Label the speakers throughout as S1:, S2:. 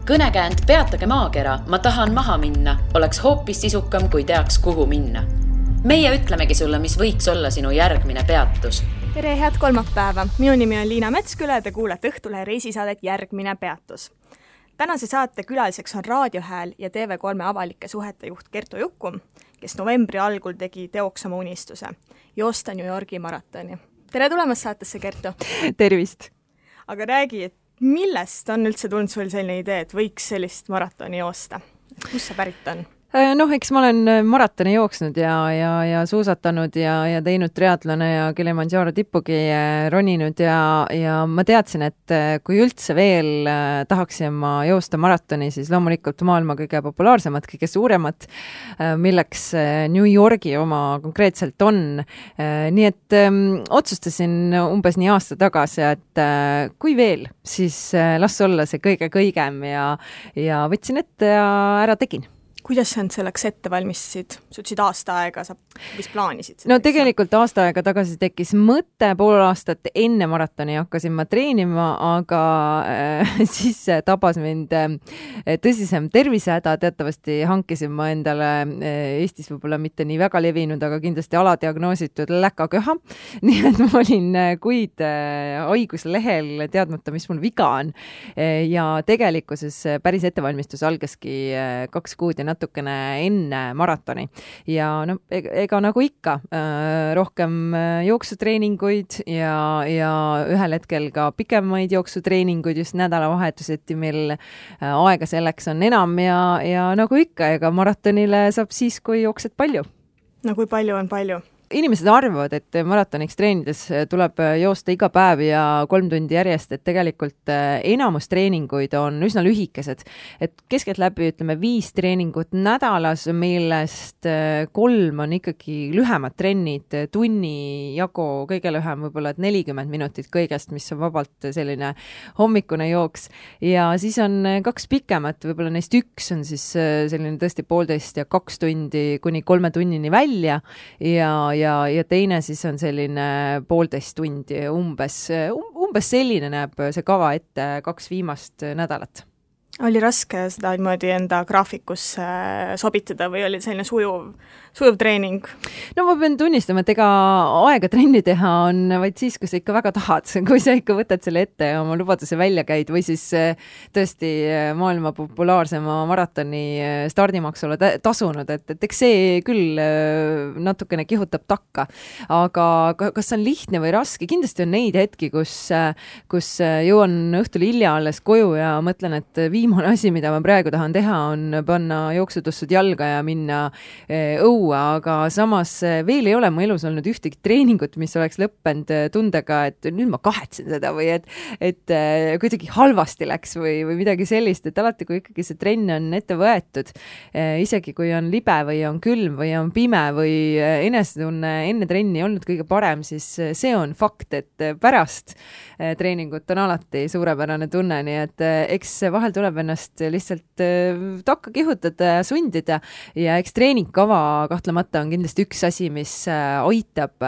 S1: Kõnekäänd Peatage maakera, ma tahan maha minna, oleks hoopis sisukam, kui teaks, kuhu minna. Meie ütlemegi sulle, mis võiks olla sinu järgmine peatus.
S2: Tere, head kolmapäeva! Minu nimi on Liina Metsküla ja te kuulete Õhtulehe reisisaadet Järgmine peatus. Tänase saate külaliseks on Raadiohääl ja TV3 avalike suhete juht Kertu Jukum, kes novembri algul tegi teoks oma unistuse, joosta New Yorgi maratoni. Tere tulemast saatesse, Kertu!
S3: Tervist!
S2: Aga räägi, et millest on üldse tulnud sul selline idee, et võiks sellist maratoni joosta? Kus see pärit on?
S3: Eks ma olen maratoni jooksnud ja suusatanud ja teinud triatlone ja Kilimanjaro tippugi roninud ja ma teadsin, et kui üldse veel tahaksin ma joosta maratoni, siis loomulikult maailma kõige populaarsemat, kõige suuremat, milleks New Yorgi oma konkreetselt on. Nii et otsustasin umbes nii aasta tagasi, et kui veel, siis las olla see kõigem ja võtsin ette ja ära tegin.
S2: Kuidas sa selleks ette valmistasid? Sa ütlesid aasta aega, sa vist plaanisid?
S3: No tegelikult aasta aega tagasi tekkis mõte, pool aastat enne maratoni hakkasin ma treenima, aga siis tabas mind tõsisem tervisehäda. Teatavasti hankisin ma endale Eestis võib-olla mitte nii väga levinud, aga kindlasti aladiagnoositud läkaköha. Nii et ma olin kuid haiguslehel teadmata, mis mul viga on. Ja tegelikkuses päris ettevalmistus algaski 2 kuud ja natukene enne maratoni. Ja no, ega nagu ikka, rohkem jooksutreeninguid ja ühel hetkel ka pikemaid jooksutreeninguid just nädalavahetuseti, mil aega selleks on enam ja nagu ikka, ega maratonile saab siis, kui jooksed palju.
S2: No kui palju on palju?
S3: Inimesed arvavad, et maratoniks treenides tuleb joosta iga päev ja 3 tundi järjest, et tegelikult enamus treeninguid on üsna lühikesed. Et keskeltläbi ütleme 5 treeningut nädalas, millest 3 on ikkagi lühemad trennid, tunni jagu kõige lühem, võib-olla 40 minutit kõigest, mis on vabalt selline hommikune jooks. Ja siis on 2 pikemat, võib-olla neist 1 on siis selline tõesti 1,5 ja 2 tundi kuni 3 tunnini välja ja teine siis on selline 1,5 tundi umbes selline näeb see kava ette 2 viimast nädalat.
S2: Oli raske seda niimoodi enda graafikusse sobitada või oli selline sujuv treening?
S3: No ma pean tunnistama, et ega aega trenni teha on vaid siis, kui sa ikka väga tahad, kui sa ikka võtad selle ette ja oma lubaduse välja käid või siis tõesti maailma populaarsema maratoni stardimaksule tasunud, et eks see küll natukene kihutab takka. Aga kas on lihtne või raske? Kindlasti on neid hetki, kus jõuan õhtul hilja alles koju ja mõtlen, et viimane asi, mida ma praegu tahan teha, on panna jooksutussud jalga ja minna õua, aga samas veel ei ole mu elus olnud ühtegi treeningut, mis oleks lõppenud tundega, et nüüd ma kahetsen seda või et kuidagi halvasti läks või midagi sellist, et alati kui ikkagi see trenn on ette võetud, isegi kui on libe või on külm või on pime või enesetunne enne trenni olnud kõige parem, siis see on fakt, et pärast treeningut on alati suurepärane tunne, nii et eks vahel tuleb ennast lihtsalt takka kihutada ja sundida ja eks treeningkava kahtlemata on kindlasti üks asi, mis aitab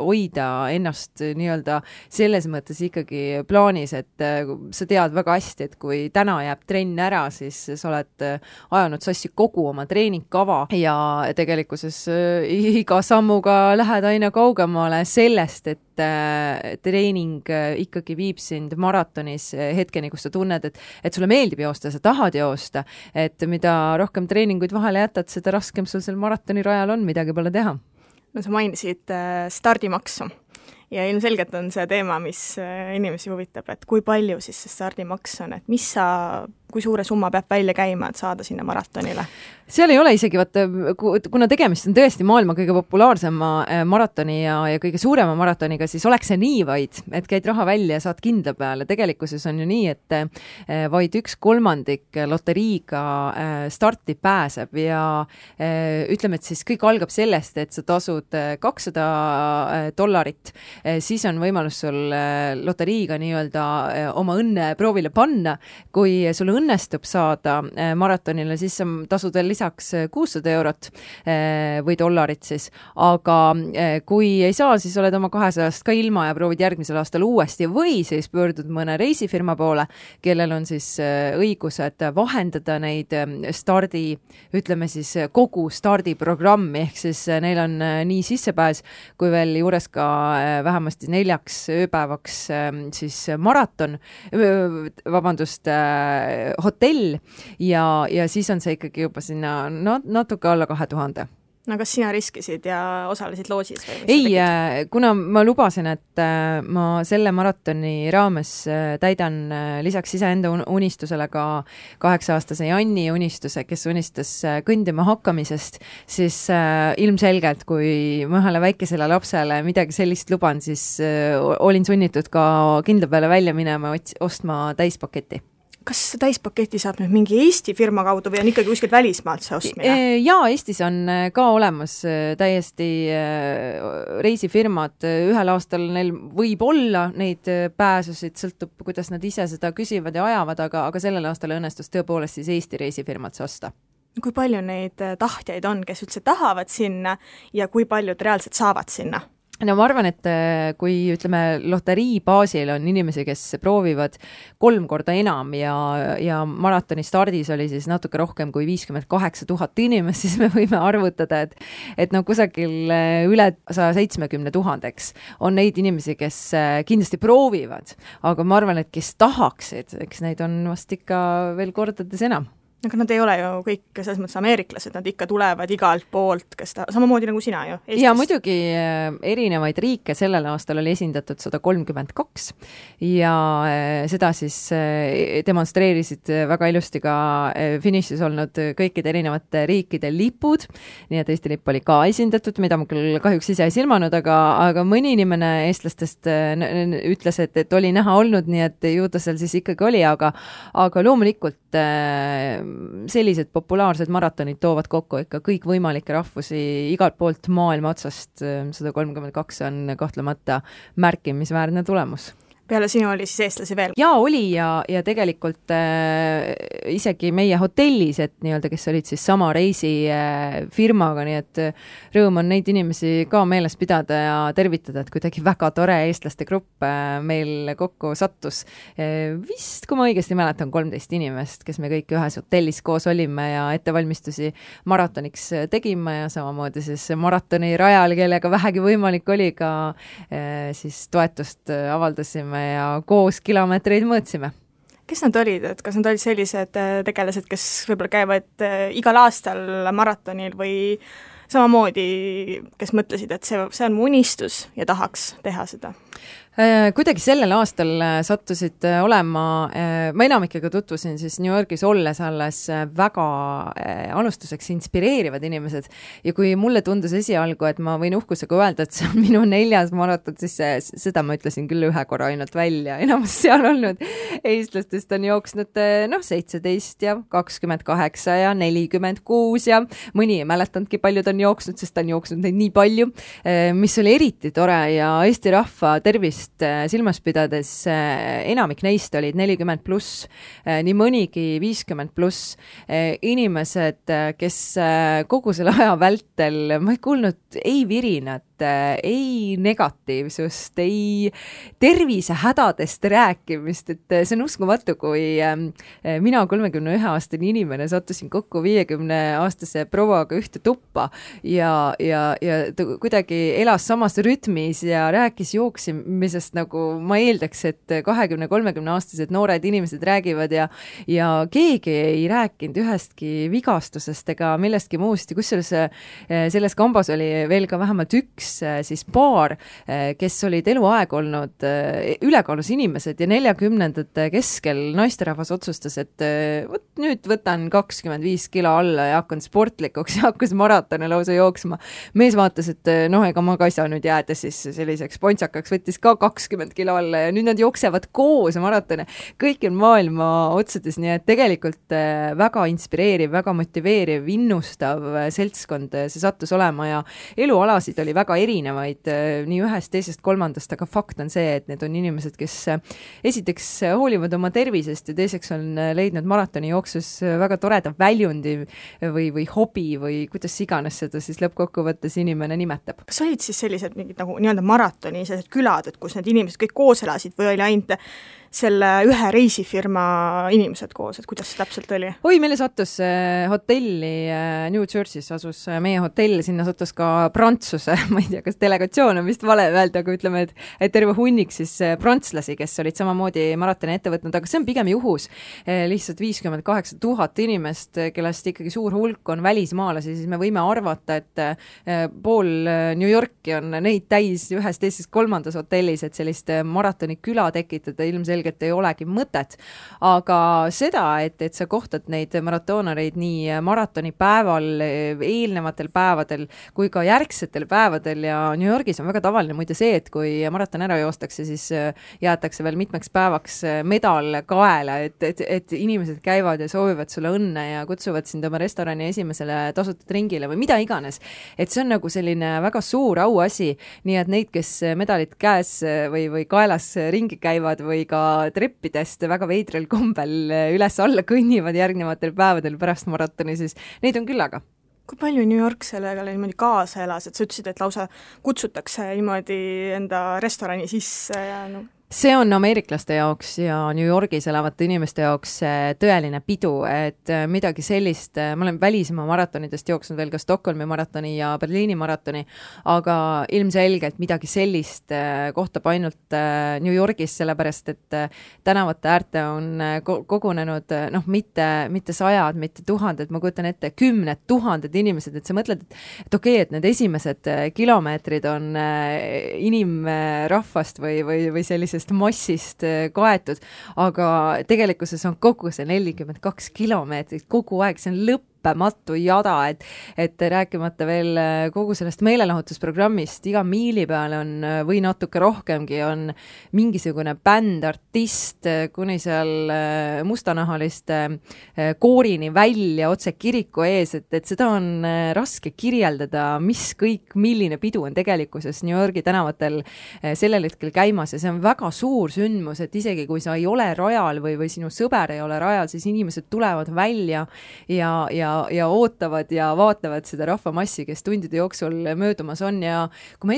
S3: hoida ennast nii-öelda selles mõttes ikkagi plaanis, et sa tead väga hästi, et kui täna jääb trenn ära, siis sa oled ajanud sassi kogu oma treeningkava ja tegelikkuses iga sammuga lähed aina kaugemale sellest, et treening ikkagi viib sind maratonis hetkeni, kus sa tunned, et sulle meeldib joosta, sa tahad joosta, et mida rohkem treeninguid vahele jätad, seda raskem sul seal maratoni rajal on, midagi pole teha.
S2: No sa mainisid stardimaksu ja ilmselgelt on see teema, mis inimesi huvitab, et kui palju siis see stardimaks on, et kui suure summa peab välja käima, et saada sinna maratonile?
S3: Seal ei ole isegi, kuna tegemist on tõesti maailma kõige populaarsema maratoni ja kõige suurema maratoniga, siis oleks see nii vaid, et käid raha välja ja saad kindla peale. Tegelikkuses on ju nii, et vaid 1/3 loteriiga starti pääseb ja ütleme, et siis kõik algab sellest, et sa tasud $200, siis on võimalus sul loteriiga nii-öelda oma õnne proovile panna. Kui sul õnnestub saada maratonile, siis sa tasud veel lisaks 600 eurot või dollarit siis, aga kui ei saa, siis oled oma 200-st ka ilma ja proovid järgmisel aastal uuesti või siis pöördud mõne reisifirma poole, kellel on siis õigused vahendada neid ütleme siis kogu stardiprogrammi, ehk siis neil on nii sissepääs kui veel juures ka vähemasti 4 ööpäevaks siis maraton, hotell ja siis on see ikkagi juba sinna natuke alla 2000.
S2: No kas sina riskisid ja osalesid loosis?
S3: Ei, kuna ma lubasin, et ma selle maratoni raames täidan lisaks iseenda unistusele ka 8-aastase Janni unistuse, kes unistas kõndima hakkamisest, siis ilmselgelt, kui ma ühele väikesele lapsele midagi sellist luban, siis olin sunnitud ka kindla peale välja minema ostma täispaketi.
S2: Kas täispaketi saab nüüd mingi Eesti firma kaudu või on ikkagi kuskilt välismaalt see ostmine?
S3: Jaa, Eestis on ka olemas täiesti reisifirmad. Ühel aastal neil võib olla neid pääsusid, sõltub, kuidas nad ise seda küsivad ja ajavad, aga sellel aastal õnnestus tõepoolest siis Eesti reisifirmad see osta.
S2: Kui palju neid tahtjaid on, kes üldse tahavad sinna ja kui paljud reaalselt saavad sinna?
S3: No ma arvan, et kui ütleme loterii baasil on inimesi, kes proovivad 3 korda enam ja maratoni stardis oli siis natuke rohkem kui 58 000 inimest, siis me võime arvutada, et kusagil üle 170 000 on neid inimesi, kes kindlasti proovivad, aga ma arvan, et kes tahaksid, eks neid on vast ikka veel kordades enam.
S2: Aga nad ei ole ju kõik selles mõttes ameeriklased, nad ikka tulevad igalt poolt, samamoodi nagu sina ju Eestis.
S3: Ja muidugi erinevaid riike sellel aastal oli esindatud 132 ja seda siis demonstreerisid väga ilusti ka finišis olnud kõikide erinevate riikide lipud, nii et Eesti lipp oli ka esindatud, mida ma küll kahjuks ise ei silmanud, aga mõni inimene eestlastest ütles, et oli näha olnud, nii et ju ta seal siis ikkagi oli, aga loomulikult sellised populaarsed maratonid toovad kokku ikka kõik võimalikke rahvusi igalt poolt maailma otsast. 132 on kahtlemata märkimisväärne tulemus.
S2: Peale sinu oli siis eestlasi veel?
S3: Jaa, oli ja tegelikult isegi meie hotellis, et nii-öelda, kes olid siis sama reisifirmaga, nii et rõõm on neid inimesi ka meeles pidada ja tervitada, et kuidagi väga tore eestlaste grupp meil kokku sattus. Vist, kui ma õigesti mäletan, 13 inimest, kes me kõik ühes hotellis koos olime ja ettevalmistusi maratoniks tegime ja samamoodi siis maratoni rajal, kellega vähegi võimalik oli ka siis toetust avaldasime ja koos kilomeetreid mõõtsime.
S2: Kes nad olid, et kas nad olid sellised tegelased, kes võib-olla käivad igal aastal maratonil või samamoodi, kes mõtlesid, et see on mu unistus ja tahaks teha seda?
S3: Kuidagi sellel aastal sattusid olema, ma enamikega tutvusin siis New Yorgis olles alles väga alustuseks inspireerivad inimesed ja kui mulle tundus esialgu, et ma võin uhkusega öelda, et see on minu 4. maraton, siis seda ma ütlesin küll 1 korra ainult välja, enamus seal olnud eestlastest on jooksnud 17 ja 28 ja 46 ja mõni ei mäletanudki, paljud on jooksnud, sest ta on jooksnud neid nii palju, mis oli eriti tore ja Eesti rahva tervist silmas pidades enamik neist olid 40+, nii mõnigi 50+, inimesed, kes kogu selle aja vältel, ma ei kuulnud ei virinat, ei negatiivsust, ei tervisehädadest rääkimist, et see on uskumatu, kui mina 31-aastane inimene sattusin kokku 50-aastase prouaga ühte tuppa ja ta kuidagi elas samas rütmis ja rääkis jooksimisest, nagu ma eeldaks, et 20-30-aastased noored inimesed räägivad ja keegi ei rääkinud ühestki vigastusest ega millestki muust ja kusjuures selles kambas oli veel ka vähemalt üks siis paar, kes olid eluaeg olnud ülekaalus inimesed ja 40ndate keskel naisterahvas otsustas, et nüüd võtan 25 kilo alla ja hakkan sportlikuks ja hakkas maratone lausa jooksma. Mees vaatas, et ega ma ka ei saa nüüd jääda siis selliseks pontsakaks, võttis ka 20 kilo alla ja nüüd nad jooksevad koos maratone. Kõik on maailma otsades, nii et tegelikult väga inspireeriv, väga motiveeriv, innustav seltskond see sattus olema ja elualasid oli väga väga erinevaid nii ühest, teisest, kolmandast, aga fakt on see, et need on inimesed, kes esiteks hoolivad oma tervisest ja teiseks on leidnud maratoni jooksus väga toreda väljundi või hobi või kuidas iganes seda siis lõppkokkuvõttes inimene nimetab.
S2: Kas olid siis sellised mingid nagu nii-öelda maratoni sellised külad, et kus need inimesed kõik koos elasid või oli ainult selle ühe reisifirma inimesed koos, et kuidas see täpselt oli?
S3: Oi, meile sattus hotelli New Jersey's asus meie hotell, sinna sattus ka Prantsuse, ma ei tea, kas delegatsioon on vist vale öelda, aga ütleme, et terve hunnik siis prantslasi, kes olid samamoodi maratoni ette võtnud, aga see on pigem juhus. Lihtsalt 58 000 inimest, kellest ikkagi suur hulk on välismaalasi, siis me võime arvata, et pool New Yorki on neid täis ühes, teises, kolmandas hotellis, et sellist maratoni küla tekitada ilmselgelt ei olegi mõtet. Aga seda, et sa kohtad neid maratoonareid nii maratoni päeval, eelnevatel päevadel kui ka järgsetel päevadel ja New Yorgis on väga tavaline muide see, et kui maraton ära joostakse, siis jäetakse veel mitmeks päevaks medal kaela, et inimesed käivad ja soovivad sulle õnne ja kutsuvad sind oma restorani esimesele tasutud ringile või mida iganes. Et see on nagu selline väga suur auasi, nii et neid, kes medalit käes või kaelas ringi käivad või ka treppidest väga veidral kombel üles-alla kõnnivad järgnevatel päevadel pärast maratoni, siis neid on küllaga.
S2: Kui palju New York sellega niimoodi kaasa elas, et sa ütlesid, et lausa kutsutakse niimoodi enda restorani sisse ja
S3: See on ameeriklaste jaoks ja New Yorgis elavate inimeste jaoks tõeline pidu, et midagi sellist, ma olen välismaa maratonidest jooksnud veel ka Stockholmi maratoni ja Berliini maratoni, aga ilmselgelt midagi sellist kohtab ainult New Yorgis, sellepärast et tänavate äärte on kogunenud mitte sajad, mitte tuhanded, ma kujutan ette 10 000 inimesed, et sa mõtled, et okei, et need esimesed kilomeetrid on inimrahvast või sellisest massist kaetud, aga tegelikkuses on kogu see 42 kilomeetrit kogu aeg, see on lõppematu jada, et rääkimata veel kogu sellest meelelahutusprogrammist, iga miili peale on või natuke rohkemgi on mingisugune bänd, artist, kuni seal mustanahaliste koorini välja otse kiriku ees, et seda on raske kirjeldada, milline pidu on tegelikkuses New Yorgi tänavatel sellel hetkel käimas ja see on väga suur sündmus, et isegi kui sa ei ole rajal või sinu sõber ei ole rajal, siis inimesed tulevad välja ja ootavad ja vaatavad seda rahvamassi, kes tundide jooksul möödumas on ja kui ma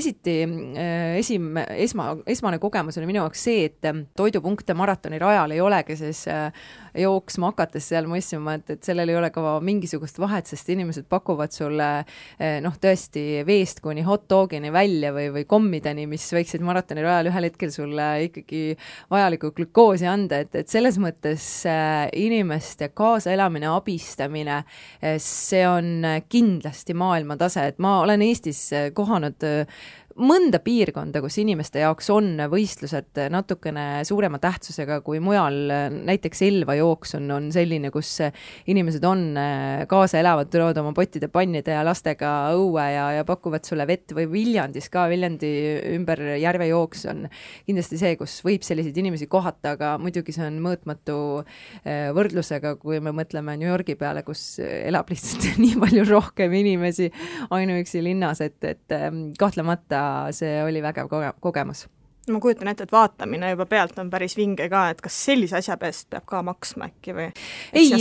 S3: esmane kogemus oli minu jaoks see, et toidupunkte maratoni rajal ei olegi, siis jooksma hakates seal mõistma, et sellel ei ole ka mingisugust vahet, sest inimesed pakuvad sulle tõesti veest kuni hot dogini välja või kommideni, mis võiksid maratoni rajal ühel hetkel sulle ikkagi vajalikku glükoosi anda, et selles mõttes inimeste kaasaelamine, abistamine, see on kindlasti maailmatase, et ma olen Eestis kohanud mõnda piirkonda, kus inimeste jaoks on võistlused natukene suurema tähtsusega kui mujal, näiteks Elva jooks on selline, kus inimesed on kaasa elavad, tulevad oma pottide, pannide ja lastega õue ja pakuvad sulle vett või Viljandis ka, Viljandi ümber järve jooks on kindlasti see, kus võib selliseid inimesi kohata, aga muidugi see on mõõtmatu võrdlusega, kui me mõtleme New Yorgi peale, kus elab lihtsalt nii palju rohkem inimesi ainuüksi linnas, et kahtlemata see oli vägev kogemus.
S2: Ma kujutan ette, et vaatamine juba pealt on päris vinge ka, et kas sellise asja peast peab ka maksma äkki või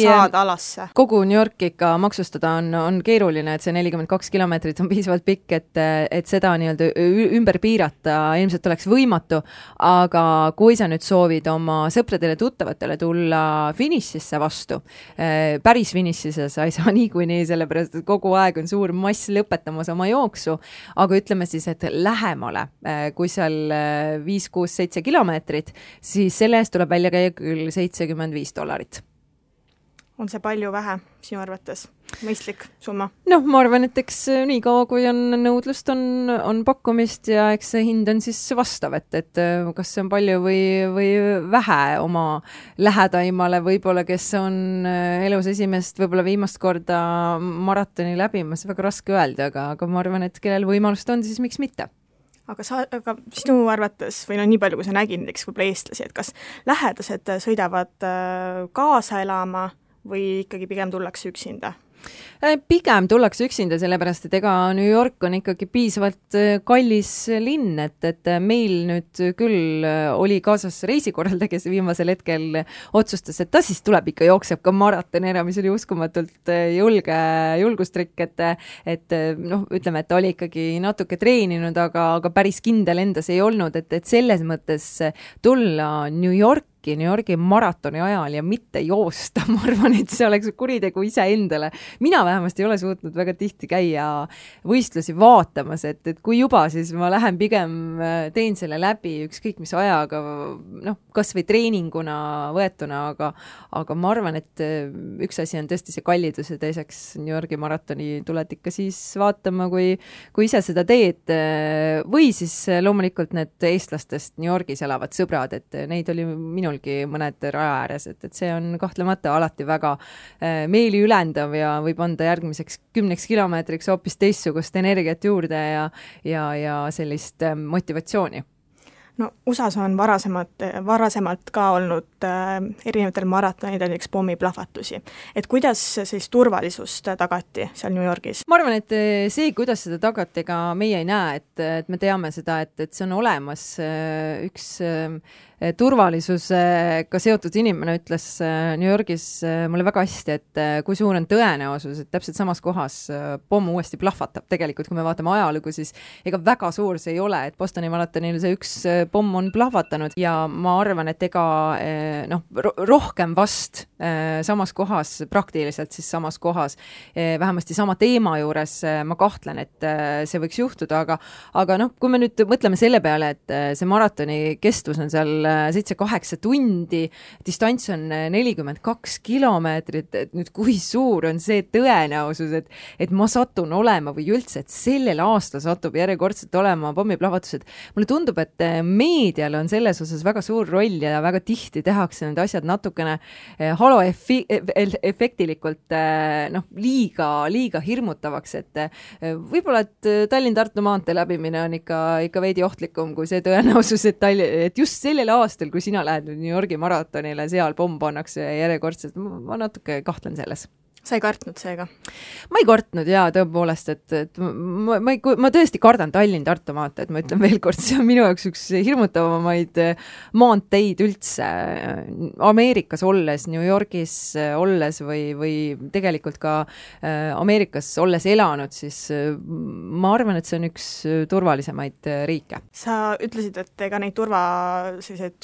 S2: saada alasse?
S3: Kogu New York ikka maksustada on keeruline, et see 42 kilomeetrit on piisavalt pikk, et seda nii-öelda ümber piirata ilmselt oleks võimatu, aga kui sa nüüd soovid oma sõpradele tuttavatele tulla finišisse vastu, päris finišisse sa ei saa niikuinii, sellepärast et kogu aeg on suur mass lõpetamas oma jooksu, aga ütleme siis, et lähemale, kui seal 5, 6, 7 kilomeetrit, siis selle eest tuleb välja käia küll $75.
S2: On see palju vähe sinu arvates? Mõistlik summa?
S3: Ma arvan, et eks nii kaua, kui on nõudlust, on pakkumist ja eks see hind on siis vastav, et kas see on palju või vähe oma lähedaimale, võib-olla kes on elus esimest, võib-olla viimast korda maratoni läbimas, väga raske öelda, aga ma arvan, et kellel võimalust on, siis miks mitte?
S2: Aga sinu arvates, või nii palju, kui sa nägid näiteks võib-olla eestlasi, et kas lähedased sõidavad kaasa elama või ikkagi pigem tullakse üksinda?
S3: Pigem tullakse üksinda, sellepärast, et ega New York on ikkagi piisavalt kallis linn, et meil nüüd küll oli kaasas reisikorraldaja, kes viimasel hetkel otsustas, et ta siis tuleb ikka jookseb ka maratoni ära, mis oli uskumatult julgustrikk, et noh, ütleme, et ta oli ikkagi natuke treeninud, aga päris kindel endas ei olnud, et selles mõttes tulla New Yorgi maratoni ajal ja mitte joosta, ma arvan, et see oleks kuritegu iseendale. Mina vähemasti ei ole suutnud väga tihti käia võistlusi vaatamas, et kui juba, siis ma lähen pigem teen selle läbi ükskõik mis ajaga, noh, kas või treeninguna võetuna, aga ma arvan, et üks asi on tõesti see kallidus ja teiseks New Yorgi maratoni tuled ikka siis vaatama, kui ise seda teed, või siis loomulikult need eestlastest New Yorgis elavad sõbrad, et neid oli minulgi mõned raja ääres, et see on kahtlemata alati väga meeli ülendav ja võib anda järgmiseks 10 kilomeetriks hoopis teistsugust energiat juurde ja sellist motivatsiooni.
S2: No USAs on varasemalt ka olnud erinevatel maratonidel näiteks pommiplahvatusi. Et kuidas siis turvalisust tagati seal New Yorgis?
S3: Ma arvan, et see, kuidas seda tagati, ega meie ei näe, et me teame seda, et see on olemas üks turvalisusega seotud inimene ütles New Yorgis mulle väga hästi, et kui suur on tõenäosus, et täpselt samas kohas pomm uuesti plahvatab. Tegelikult, kui me vaatame ajalugu, siis ega väga suur see ei ole, et Bostoni maratonil see üks pomm on plahvatanud ja ma arvan, et ega rohkem vast samas kohas, praktiliselt siis samas kohas, vähemasti sama teema juures ma kahtlen, et see võiks juhtuda, aga kui me nüüd mõtleme selle peale, et see maratoni kestvus on seal 7-8 tundi, distants on 42 kilomeetrit, et nüüd kui suur on see tõenäosus, et ma satun olema või üldse, et sellel aastal satub järjekordselt olema pommiplahvatused. Mulle tundub, et meedial on selles osas väga suur roll ja väga tihti tehakse need asjad natukene haloefektilikult liiga hirmutavaks, et võib-olla, et Tallinn-Tartu maantee läbimine on ikka veidi ohtlikum kui see tõenäosus, et just sellel aastal, kui sina lähed New Yorgi maratonile, seal pomm pannakse järjekordselt, ma natuke kahtlen selles.
S2: Sa ei kartnud seega?
S3: Ma ei kartnud jaa, tõepoolest, et ma tõesti kardan Tallinn-Tartu maanteed, ma ütlen veel kord, see on minu jaoks üks hirmutavamaid maanteid üldse. Ameerikas olles, New Yorgis olles või tegelikult ka Ameerikas olles elanud, siis ma arvan, et see on üks turvalisemaid riike.
S2: Sa ütlesid, et ega neid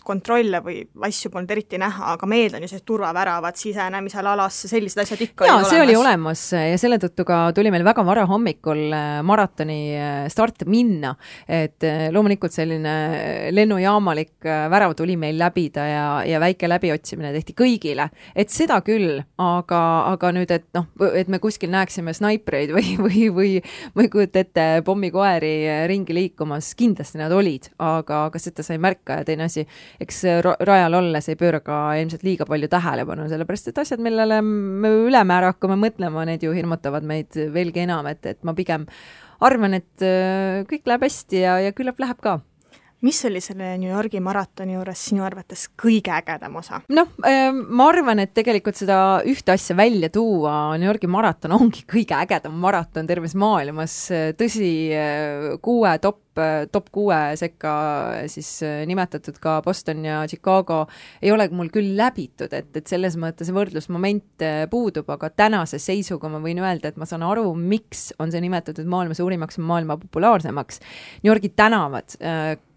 S2: kontrolle või asju polnud eriti näha, aga meil on ju turvaväravad sisenemisel alasse, sellised asjad ikka
S3: see oli olemas ja selle tõttu ka tuli meil väga vara hommikul maratoni start minna, et loomulikult selline lennujaamalik värav tuli meil läbida ja väike läbiotsimine tehti kõigile, et seda küll, aga nüüd, et me kuskil näeksime snaipreid või ma ei kujuta ette pommikoeri ringi liikumas, kindlasti nad olid, aga seda sai märka ja teine asi, eks rajal olles ei pööra ka ilmselt liiga palju tähelepanu, sellepärast et asjad, millele me ülemäära hakkame mõtlema, need ju hirmutavad meid veelgi enam, et ma pigem arvan, et kõik läheb hästi ja küllap läheb ka.
S2: Mis oli selle New Yorgi maratoni juures sinu arvates kõige ägedam osa?
S3: Ma arvan, et tegelikult seda ühte asja välja tuua, New Yorgi maraton ongi kõige ägedam maraton terves maailmas. Tõsi, 6 top 6 sekka siis nimetatud ka Boston ja Chicago ei ole mul küll läbitud, et selles mõttes võrdlusmoment puudub, aga tänase seisuga ma võin öelda, et ma saan aru, miks on see nimetatud maailma suurimaks ja maailma populaarsemaks. New Yorgi tänavad,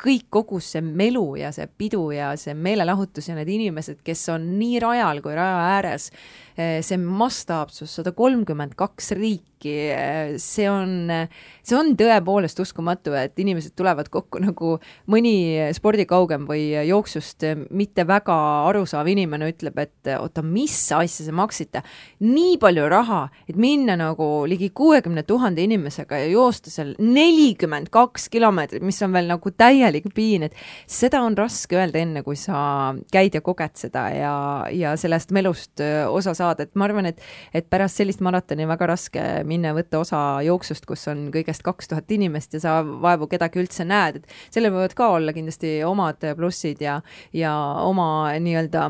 S3: kõik kogu see melu ja see pidu ja see meelelahutus ja need inimesed, kes on nii rajal kui raja ääres, see mastaapsus 132 riiki, see on tõepoolest uskumatu, et inimesed tulevad kokku nagu mõni spordikaugem või jooksust mitte väga arusaav inimene ütleb, et oota, mis asja see maksite? Nii palju raha, et minna nagu ligi 60 000 inimesega ja joosta seal 42 kilomeetrit, mis on veel nagu täielik piin, et seda on raske öelda enne, kui sa käid ja koged seda ja sellest melust osa saada, et ma arvan, et pärast sellist maratoni väga raske minna võtta osa jooksust, kus on kõigest 2000 inimest ja sa vaevu kedagi üldse näed, et sellel võivad ka olla kindlasti omad plussid ja oma nii-öelda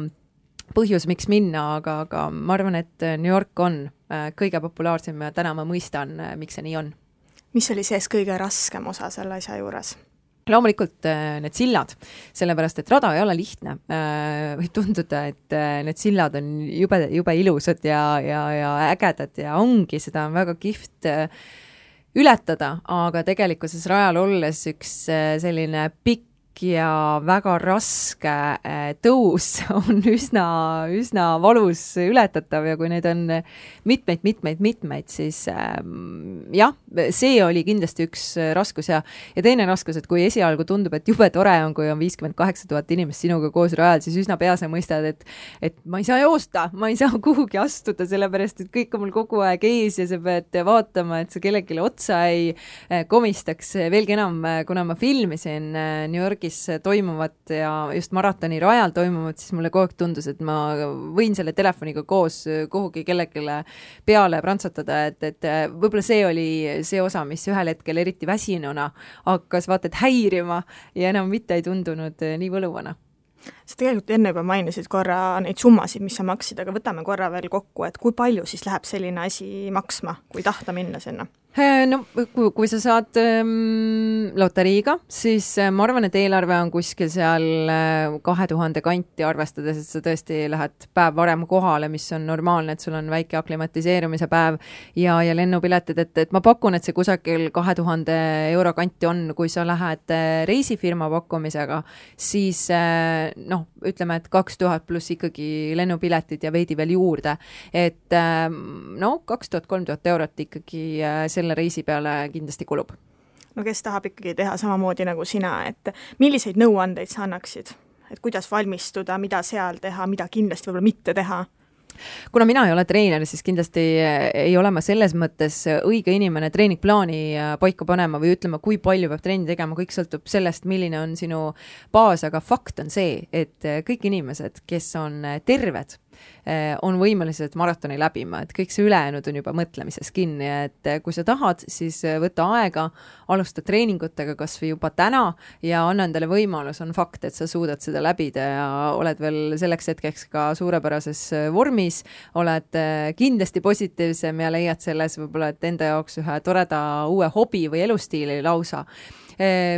S3: põhjus, miks minna, aga ma arvan, et New York on kõige populaarsem ja täna ma mõistan, miks see nii on.
S2: Mis oli sees kõige raskem osa selle asja juures?
S3: Loomulikult need sillad, sellepärast, et rada ei ole lihtne. Võib tunduda, et need sillad on jube ilusad ja ägedad ja ongi, seda on väga kihvt ületada, aga tegelikkuses rajal olles üks selline pikk ja väga raske tõus on üsna valus ületatav ja kui neid on mitmeid, siis jah, see oli kindlasti üks raskus ja teine raskus, et kui esialgu tundub, et jube tore on, kui on 58 000 inimest sinuga koos rajal, siis üsna pea sa mõistad, et ma ei saa joosta, ma ei saa kuhugi astuda, sellepärast, et kõik on mul kogu aeg ees ja sa pead vaatama, et sa kellelegi otsa ei komistaks. Veelgi enam, kuna ma filmisin New Yorgis toimuvat ja just maratoni rajal toimuvat, siis mulle kogu aeg tundus, et ma võin selle telefoniga koos kuhugi kellelegi peale prantsatada, et võib-olla see oli see osa, mis ühel hetkel eriti väsinuna hakkas vaatad häirima ja enam mitte ei tundunud nii võluvana.
S2: Sa tegelikult enne juba mainisid korra neid summasid, mis sa maksid, aga võtame korra veel kokku, et kui palju siis läheb selline asi maksma, kui tahta minna sinna?
S3: No, kui sa saad loteriiga, siis ma arvan, et eelarve on kuskil seal 2000 kanti arvestades, et sa tõesti lähed päev varem kohale, mis on normaalne, et sul on väike aklimatiseerumise päev ja lennupiletid, et ma pakun, et see kusagil 2000 euro kanti on, kui sa lähed reisifirma pakkumisega, siis ütleme, et 2000 pluss ikkagi lennupiletid ja veidi veel juurde, et 2000-3000 eurot ikkagi selle reisi peale kindlasti kulub.
S2: No kes tahab ikkagi teha samamoodi nagu sina, et milliseid nõuandeid sa annaksid? Et kuidas valmistuda, mida seal teha, mida kindlasti võib-olla mitte teha?
S3: Kuna mina ei ole treener, siis kindlasti ei ole ma selles mõttes õige inimene treeningplaani paika panema või ütlema, kui palju peab treeni tegema, kõik sõltub sellest, milline on sinu baas, aga fakt on see, et kõik inimesed, kes on terved, on võimelised maratoni läbima, et kõik see ülejäänud on juba mõtlemises kinni, et kui sa tahad, siis võta aega, alusta treeningutega kas või juba täna ja anna endale võimalus, on fakt, et sa suudad seda läbida ja oled veel selleks hetkeks ka suurepärases vormis, oled kindlasti positiivsem ja leiad selles võib-olla, et enda jaoks ühe toreda uue hobi või elustiili lausa.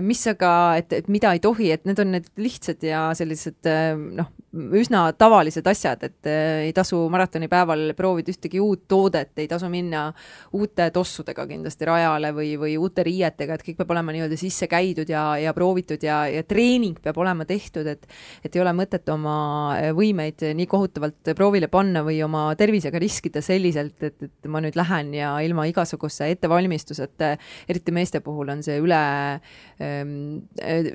S3: Mis aga, et mida ei tohi, et need on need lihtsad ja sellised üsna tavalised asjad, et ei tasu maratoni päeval proovida ühtegi uut toodet, ei tasu minna uute tossudega kindlasti rajale või uute riietega, et kõik peab olema nii-öelda sisse käidud ja proovitud ja treening peab olema tehtud, et ei ole mõtet oma võimeid nii kohutavalt proovile panna või oma tervisega riskida selliselt, et ma nüüd lähen ja ilma igasuguse ettevalmistuseta, eriti meeste puhul on see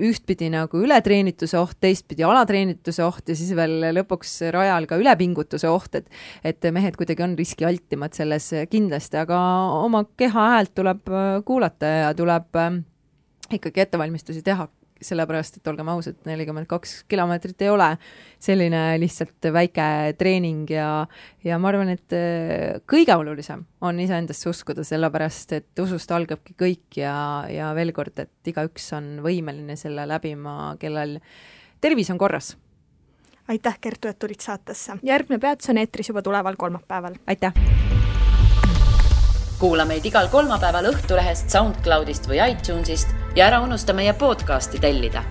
S3: ühtpidi nagu ületreenituse oht, teistpidi alatreenituse oht ja siis veel lõpuks rajal ka ülepingutuse oht, et mehed kuidagi on riskialtimad selles kindlasti, aga oma keha häält tuleb kuulata ja tuleb ikkagi ettevalmistusi teha, sellepärast, et olgem ausad, 42 kilomeetrit ei ole selline lihtsalt väike treening ja ma arvan, et kõige olulisem on iseendasse uskuda, sellepärast, et usust algabki kõik ja veel kord, et igaüks on võimeline selle läbima, kellel tervis on korras.
S2: Aitäh, Kertu, et tulid saatesse. Järgmine peatus on eetris juba tuleval kolmapäeval.
S3: Aitäh!
S1: Kuula meid igal kolmapäeval Õhtulehest, SoundCloudist või iTunesist ja ära unusta meie podcasti tellida.